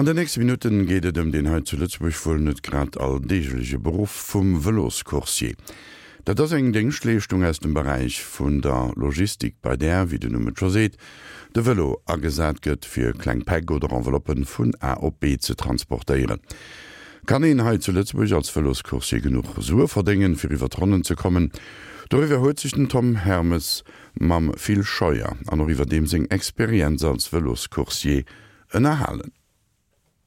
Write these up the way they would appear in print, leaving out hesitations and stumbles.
An den nächste Minutten geet et ëm deen hei zu Lëtzebuerg wuel net grad alldeegleche Beruff vum Vëloscoursier. Dat ass eng Déngschtleeschtung aus dem Beräich vun der Logistik, bei där, wéi den Numm et scho seet, de Vëlo agesat gëtt, fir kleng Päck oder Enveloppen vun A op B ze transportéieren. Kann een hei zu Lëtzebuerg als Vëloscoursier genuch Sue verdéngen, fir iwwer d'Ronnen ze kommen? Doriwwer huet sech den Tom Hermes mam Phil Scheuer an och iwwer deem seng Experienz als Vëloscoursier ënnerhalen.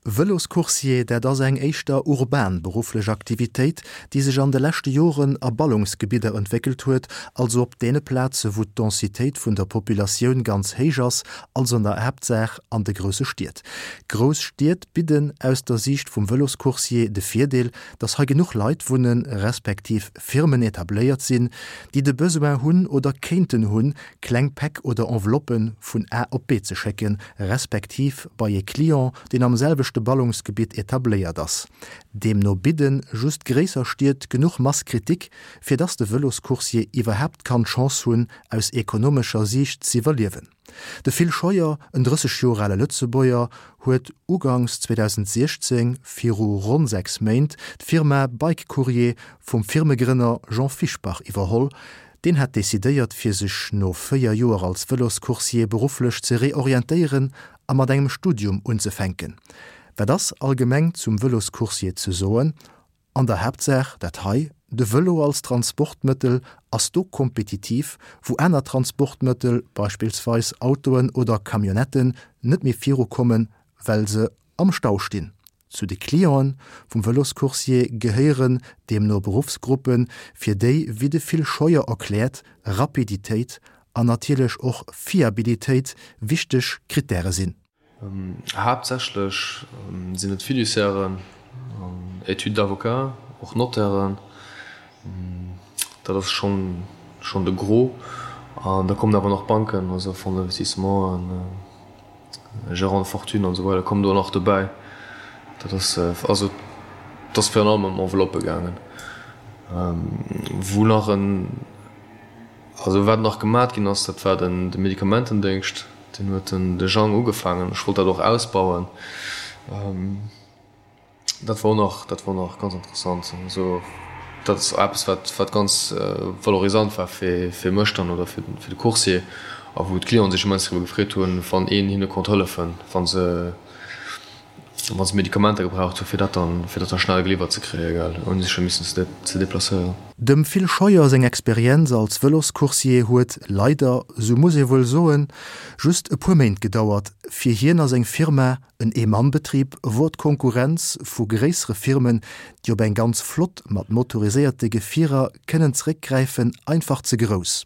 Vëloscoursier, dat ass eng éischter urban berufflech Aktivitéit, déi sech an de leschte Joren a Ballungsgebidder entwéckelt huet, also op deene Plaze wou d'Densitéit vun der Populatioun ganz héich ass, also an der Haaptsaach an de grousse Stied. Grouss Stied bidden aus der Siicht vum Vëloscoursier de Virdeel, datt hei genuch Leit wunnen, respektiv Firmen etabléiert sinn, déi de Besoin hunn oder kéinten hunn, kleng Päck oder Enveloppe vun A op B ze schécken, respektiv bei ee Client, deen am selwechte Ballungsgebitt etabléiert ass. Deemno bidde just gréisser Stied genuch Masse critique, fir dass de Vëloscoursier iwwerhaapt kann d'Chance hunn, aus ekonomescher Siicht z'iwwerliewen. De Phil Scheuer, en 30 Joer ale Lëtzebuerger, huet ugangs 2016, viru ronn 6 Méint, d'Firma Bike Courier vum Firmegrënner Jean Fischbach iwwerholl, Deen hat decidéiert, fir sech no 4 Joer als Vëloscoursier berufflech ze reorientéieren a mat engem Studium unzefänken. Wat ass allgemeng zum Vëloscoursier ze soen? An der Haaptsaach dat hei, De Vëlo als Transportmëttel ass do kompetitiv, wou aner Transportmëttel, beispillsweis Autoen oder Camionnetten, net méi virukommen, well se am Stau stinn. Zu de Clienten vum Vëloscoursier gehéieren deemno Beruffsgruppen, fir déi, wéi de Phil Scheuer erkläert, Rapiditéit an natierlech och Fiabilitéit wichteg Krittäre sinn. Haaptsächlech sinn et Fiduciairen an Études d'avocat, och Notairen. Dat ass schonn schonn de Gros. An da kommen awer nach Banken, also Fonds d'investissement. Gérant de fortune an esou weider kommen do nach dobäi. Dat ass also et ass virun allem ëm Enveloppë gaangen, wou nach en, also wat nach gemat ginn ass, dat war den de Medikamentendéngscht, deen huet den de Jang ugefaangen. Ech wollt dat och ausbauen. Dat wor nach, dat wor nach ganz interessant. Also dat ass eppes wat, wat ganz valorisant war fir, fir mech dann oder fir, fir de Coursier a wou d'Clienten sech immens driwwer gefreet hunn, wann een hinne konnt hëllefen, wa se, wa se Medikamenter gebraucht hunn, fir dat dann, fir dat da schnell geliwwert ze kréien, gell, ouni sech hu missen ze, ze deplacéieren. Dem Phil Scheuer seng Experienz als Vëloscoursier huet leider, sou muss ee wuel soen, just e puer Méint gedauert, fir hien a seng Firma En Ee-Mann-Betrib wor d'Konkurrenz vu gréissere Firmen, déi op eng ganz Flott mat motoriséierte Gefierer kënnen zeréckgräifen, einfach ze grouss.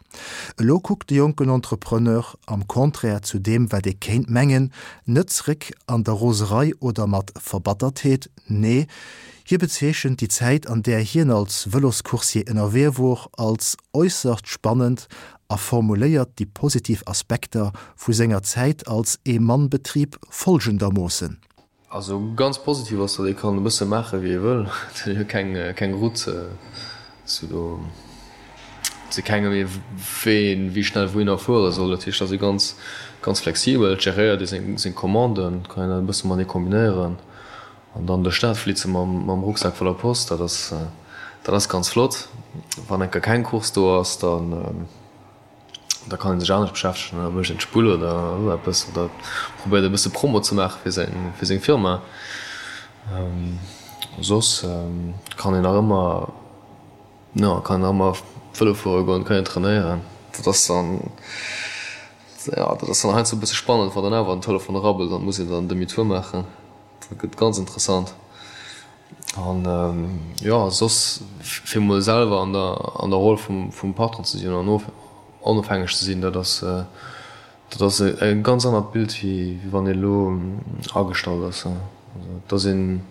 Elo kuckt de jonken Entrepreneur, am Contraire zu deem wat ee kéint mengen, net zeréck an der Roserei oder mat Verbattertheet, nee, hie bezeechent déi Zäit an där hien als Vëloscoursier ënnerwee wor als äusserst spannend a formuléiert déi positiv Aspekter vu senger Zäit als Ee-Mann-Betrib folgendermoossen. Also ganz positiv ass, datt ee kann e bësse maache wéi ee wëll. Et huet ee keng Route zu do ze kengem ee wéi een wéi schnell wouhinner fuere soll. Dat heescht, et ass ee ganz ganz flexibel, et geréiert ee seng seng Commanden, et kann een dat e bësse matenee kombinéieren. An dann duerch d'Stad flitze mam Rucksak voller Post, dat ass dat ass ganz flott. Wann enker keng Course do ass, dann da kann ee sech anescht beschäftegen, da mécht een d'Spull oder esou eppes oder probéiert e bësse Promo ze maache fir seng fir seng Firma. Soss kann een nach ëmmer, jo, kann een nach ëmmer Vëlo fuere goen, kann een trainéieren. Dat ass dann, jo, dat ass dann heiansdo e bësse spannend, wann dann awer den Telefon rabbelt an et muss een dann Demi-tour maachen. Dat gëtt ganz interessant. An jo, soss fir mol selwer an der an der Roll vum vum Patron ze sinn an onofhängeg ze sinn, dat ass dat ass e ganz anert Bild wéi wéi wann een elo agestallt ass. Also et ass een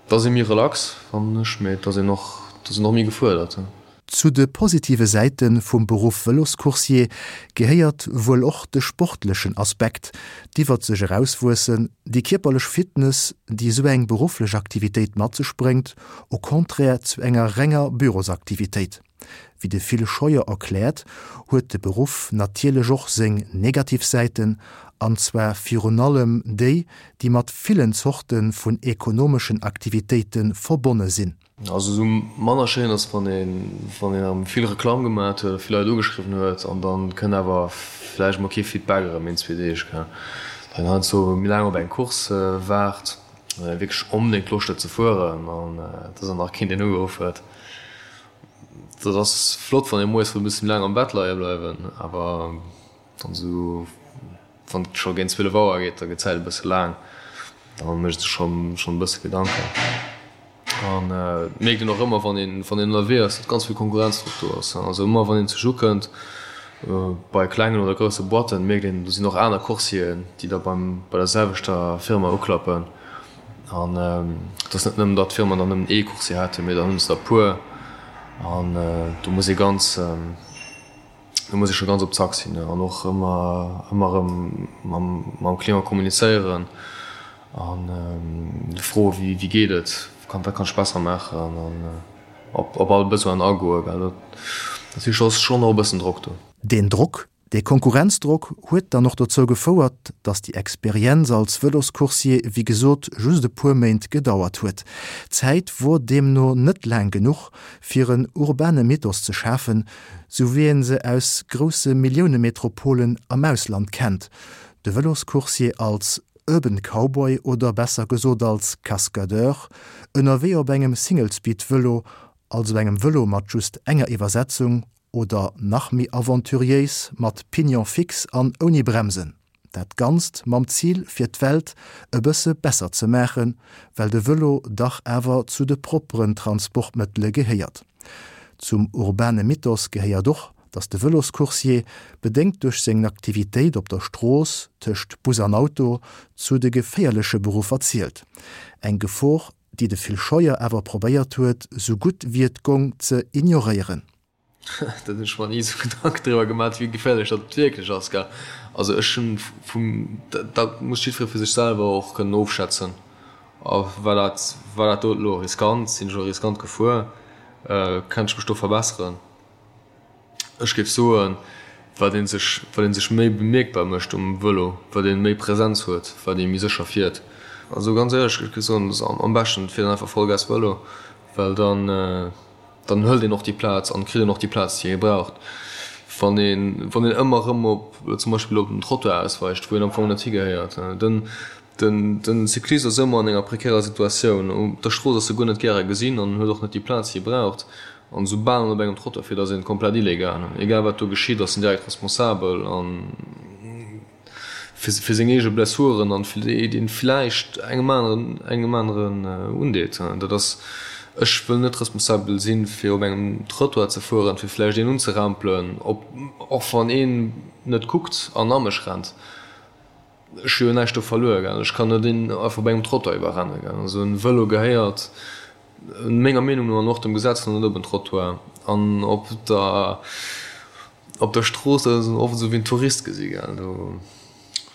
et ass ee méi relax fannen ech, mee et ass een och et ass een och méi gefuerdert. Zu de positive Säite vum Beruff Vëloscoursier gehéiert wuel och de sportlechen Aspekt, d'iwwert sech erauswuessen, déi kierperlech Fitness, déi esou eng berufflech Aktivitéit mat sech bréngt, au contraire zu enger renger Bürosaktivitéit. Wéi de Phil Scheuer erkläert, huet de Beruff natierlech och seng negativ Säiten, an zwar virun allem déi, déi mat villen Zorte vun ekonomeschen Aktivitéite verbonne sinn. Also esou manner schéin ass wann een wann een erëm vill Reklamm gemat huet a vill Leit ugeschriwwen huet an dann kënnt awer vläicht mol kee Feedback erëm een, zwee Deeg, gell. Wann een heiansdo méi laang op eng Course waart an ee wierklech onbedéngt Loscht huet ze fueren an et ass awer nach keen deen ugeruff huet. Dat ass flott wann ee moies wëll e bësse méi laang am Bett leie bleiwen, awer dann esou Wann et scho géint 12 Auer geet, da gëtt d'Zäit e bësse laang, da mécht ee sech schonn e bësse Gedanken. An et mierkt een och ëmmer, wann een, wann een ënnerwee ass, datt ganz vill Konkurrenzdrock do ass. Also ëmmer wann een sech ukënnt, bei klengen oder grousse Boîten, mierkt een, do sinn och aner Coursieren, déi da beim, bei der selwechter Firma uklappen. An et ass net nëmmen, datt d'Firmen dann nëmmen ee Coursier hätten, mee dann hunn se der e puer. An do muss ee ganz. Do muss ee scho ganz op Zack sinn an och ëmmer ëmmer erëm mam mam Client kommunizéieren a froe wéi wéi geet et, wat kann ech besser maachen an op op all Besoinen agoen, well dat ass schonn och e bëssen Drock do. Deen Drock, dee Konkurrenzdrock huet dann och dozou gefouert, datt déi Experienz als Vëloscoursier wéi gesot just e puer Méint gedauert huet. D'Zäit wor deemno net laang genuch, fir en urbane Mythos ze schafen, sou wéi een se aus grousse Milliounemetropolen am Ausland kennt, de Vëloscoursier als Urban Cowboy oder besser gesot als Cascadeur, ënnerwee op engem Single-Speed-Vëlo, also engem Vëlo mat just enger Iwwersetzung oder nach méi aventuriéis mat Pignon fixe an ouni Bremsen. Dat Ganzt mam Zil fir d'Welt e bësse besser ze maachen, well de Vëlo dach awer zu de propperen Transportmëttele gehéiert. Zum urbane Mythos gehéiert och, datt de Vëloscoursier, bedéngt duerch seng Aktivitéit op der Strooss tëscht Bus an Auto, zu de geféierleche Beruffer zielt. Eng Gefor, déi de Phil Scheuer awer probéiert huet, sou gutt wéi et gong ze ignoréieren. Dat hunn ech mer ni esou Gedanken driwwer gemaat, wéi geféierlech dat wierklech ass, gell. Also ech hunn vum, dat muss jiddweree fir sech selwer och kënnen ofschätzen, war dat, war dat do elo riskant, sinn ech elo riskant gefuer, kennt ech mech do verbesseren. Ech géif soen, wat ee sech, wat ee sech méi bemierkbar mécht um Vëlo, wat ee méi Präsenz huet, wat ee méi sécher fiert. Also ganz éierlech, ech géif soen, am beschten et fiert een einfach Vollgas Vëlo, well dann, Dann hëlt een och déi Plaz an kritt een och déi Plaz, déi ee braucht. Wann een, wann een ëmmer erëm op, zum Beispill op den Trottoir ausweicht, wou een am Fong net higehéiert. Den, den, den Cyclist ass ëmmer an enger prekärer Situatioun. Op der Strooss ass e guer net gäre gesinn an huet och net déi Plaz, déi e braucht. An soubal en op engem Trottoir fiert, ass een komplett illegal. Egal wat do geschitt, ass en direkt responsabel an. fir seng eege Blessuren an fir déi, déi en vläicht engem aneren, engem aneren undeet. Dat ass, ech wëll net responsabel sinn, fir op engem Trottoir ze fueren, fir vläicht een unzerempelen, op, och wann een net kuckt an a mech rennt. Ech hu jo näischt do verluer, gell. Ech kann net een einfach op engem Trottoir iwwerrennen, gell. Also en Vëlo gehéiert menger Meenung no an och dem Gesetz no net op en Trottoir an op der, Op der Strooss, dat ass oft esou wéi en Tourist gesi gell, do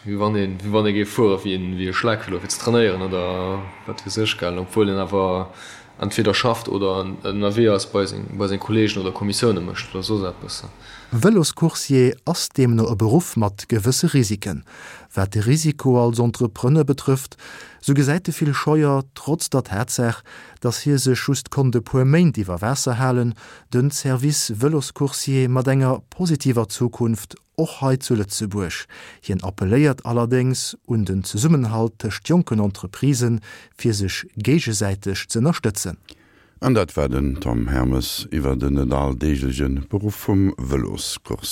wéi wann een, wéi wann ee géif fuere wéi en, wéi e Schleckvëlo fir ze trainéieren oder wat weess ech gell, obwuel een awer entweder schafft oder ënnerwee ass bei seng, bei seng Kollegen oder Kommissioune mécht oder soss eppes. Vëloscoursier ass deemno e Beruff mat gewësse Risiken. Wat de Risiko als Entrepreneur betrëfft, sou gesäit de Phil Scheuer, trotz der Tatsaach, datt hie sech just konnt e puer Méint iwwer Waasser halen, Den Service Vëloscoursier mat enger positiver Zukunft och hei zu Lëtzebuerg. Hien appelléiert allerdéngs un den Zesummenhalt tëscht jonken Entreprisen, fir sech géigesäiteg z'ënnerstëtzen. An dat war den Tom Hermes iwwer den net alldeeglege Beruff vum Vëloscoursier.